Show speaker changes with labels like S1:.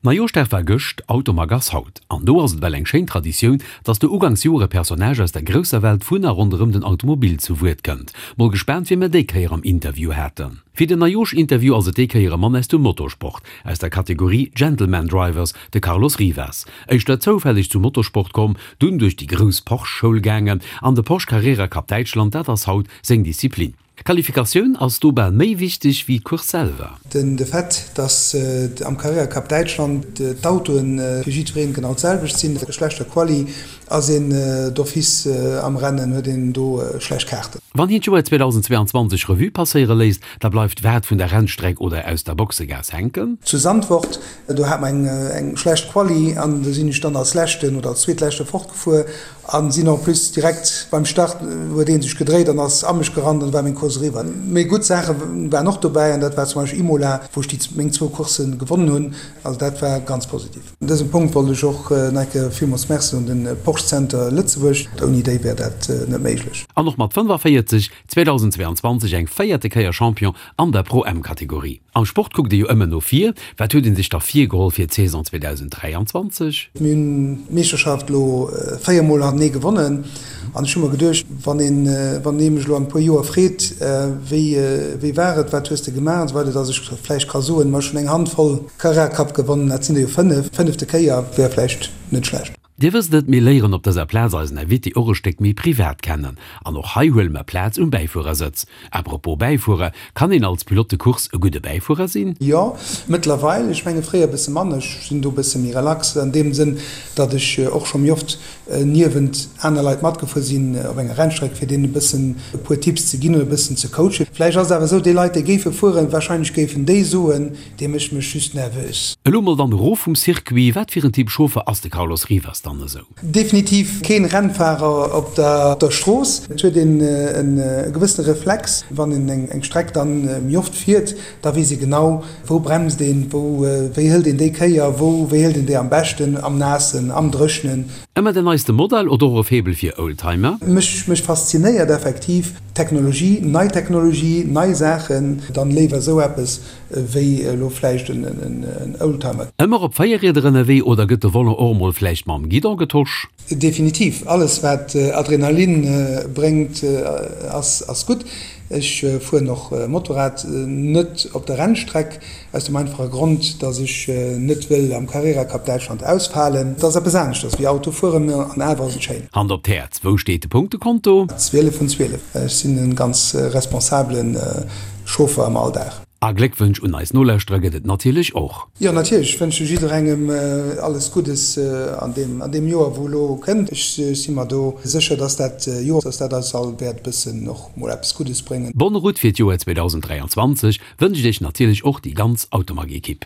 S1: Neijooschdag war gëscht, Automag ass haut. An do ass et well eng schéin Traditioun, dass do ugangs Joer e Personnage aus der grousser Welt vun a ronderëm den Automobil zu Wuert kënnt. Mol gespaant wien mer déi Kéier am Interview haten. Fir den Neijoosch-Interview ass et déi Kéier e Mann aus dem Motorsport, aus der Kategorie Gentleman Drivers, de Carlos Rivas. Éischter zoufälleg zum Motorsport komm, dunn duerch déi grouss Porsche-Schoul gaangen an de Porsche Carrera Cup Däitschland, dat ass haut seng Disziplin. D'Qualifikatioun ass do bal méi wichteg wéi d'Course selwer.
S2: Den de Fait, dass am Carrera Cup Däitschland d'Autoen fir jiddwereen genau d'selwecht sinn, bei schlechter Quali ass een d'office am Rennen, huet een do schlecht Kaarten.
S1: Wann hien d'Joer 2022 Revue passéiere léisst, da bleift wat vun der Rennstreck oder aus der Boxegaass hänken?
S2: Zu Zandvoort, do hat mer eng schlecht Quali an do sinn ech dann als leschten oder als zweetleschte fortgefuer An sinn en plus direkt beim Start huet een sech gedréit an ass a mech gerannt an war meng Course eriwwer. Mee gutt Saache waren och dobäi an dat war zum Beispill Imola, wou ech déi meng zwou Coursse gewonnen hunn. Also dat war ganz positiv. Un dësem Punkt wollt ech och nach eng Kéier villmools Merci soen den Porsche Center Lëtzebuerg. Ouni déi wär dat net méiglech.
S1: An och mat 45 2022 eng véierte Kéier Champion an der Pro M-Kategorie. Am Sport kuckt ee jo ëmmer no vir. Wat huet ee sech da virgeholl fir d'Saison 2023?
S2: Mir hunn d'Meeschterschaft elo 4 mol hantenee gewonnen an ech hu mer geduecht, wann een, wann ee mech elo an e puer Joer freet, wéi, wéi war et, wat hues de gemaach an esou weider, datt ech vläicht ka soen, ma ech hunn eng Handvoll Carrera Cup gewonnen, dat sinn der jo 5, fënnefte Kéier wär vläicht net schlecht.
S1: Dir wësst et, mir léieren op dëser Plaz eisen Invité och e Stéck méi privat kennen. An och hei huele mer Plaz um Bäifuerersëtz. À propos Bäifuerer, kann een als Pilote de course e gudde Bäifuerer sinn?
S2: Jo, mëttlerweil. Ech menge fréier e bësse manner. Ech sinn do e bësse méi relax an deem Sënn, datt ech och scho méi oft niewent aner Leit matgefuer sinn op enger Rennstreck, fir deenen e bëssen e puer Tipps ze ginn oder e bëssen ze coachen. Vläicht ass et awer esou, déi Leit, déi géife fueren, warscheinlech géifen déi soen, Dee mécht mech just nervös.
S1: Elo mol dann erof vum Circuit, wat fir en Typ Chauffer ass de Carlos Rivas dann esou?
S2: Definitiv keen Rennfahrer op der Strooss. Et huet een e gewëssene Reflex, wann een eng Streck dann méi oft fiert, da weess ee genau, wou bremst een, wou, wéi hëlt een déi Kéier, wou, wéi hëlt een déi am beschten, am Naassen, am Dréchnen.
S1: Ëmmer den neiste Modell oder och e Faible fir Oldtimer?
S2: Mech, mech faszinéiert effektiv Technologie, nei Technologie, nei Saachen, dann léiwer esou eppes Wéi elo vläicht en Oldtimer.
S1: Ëmmer op 4 Rieder ënnerwee oder gëtt de Volant och emol vläicht mam Guidon getosch?
S2: Definitiv, alles wat Adrenalin bréngt ass gutt. Ech fueren och Motorrad, net op der Rennstreck, aus dem einfache Grond, dass ech net wëll am Carrera Cup Däitschland ausfalen. Et ass eppes aneschters wéi Auto fueren, an awer ass et schéin.
S1: Hand op d'Häerz, wou steet de Punktekonto?
S2: 12 vun 12. Ech sinn e ganz responsabelen Chauffer am Alldag.
S1: A Gléckwënsch un eis Nolauschterer gëtt et natierlech och.
S2: Jo natierlech, ech wënsche jidderengem alles Guddes an deem an deem Joer wou elo kënnt. Ech si mer do sécher, dass dat Joer, dass dat eis all wäert e bëssen och mol eppes Guddes bréngen.
S1: Bonne route fir d'Joer 2023 wënscht iech natierlech och déi ganz Automag-Ekipp.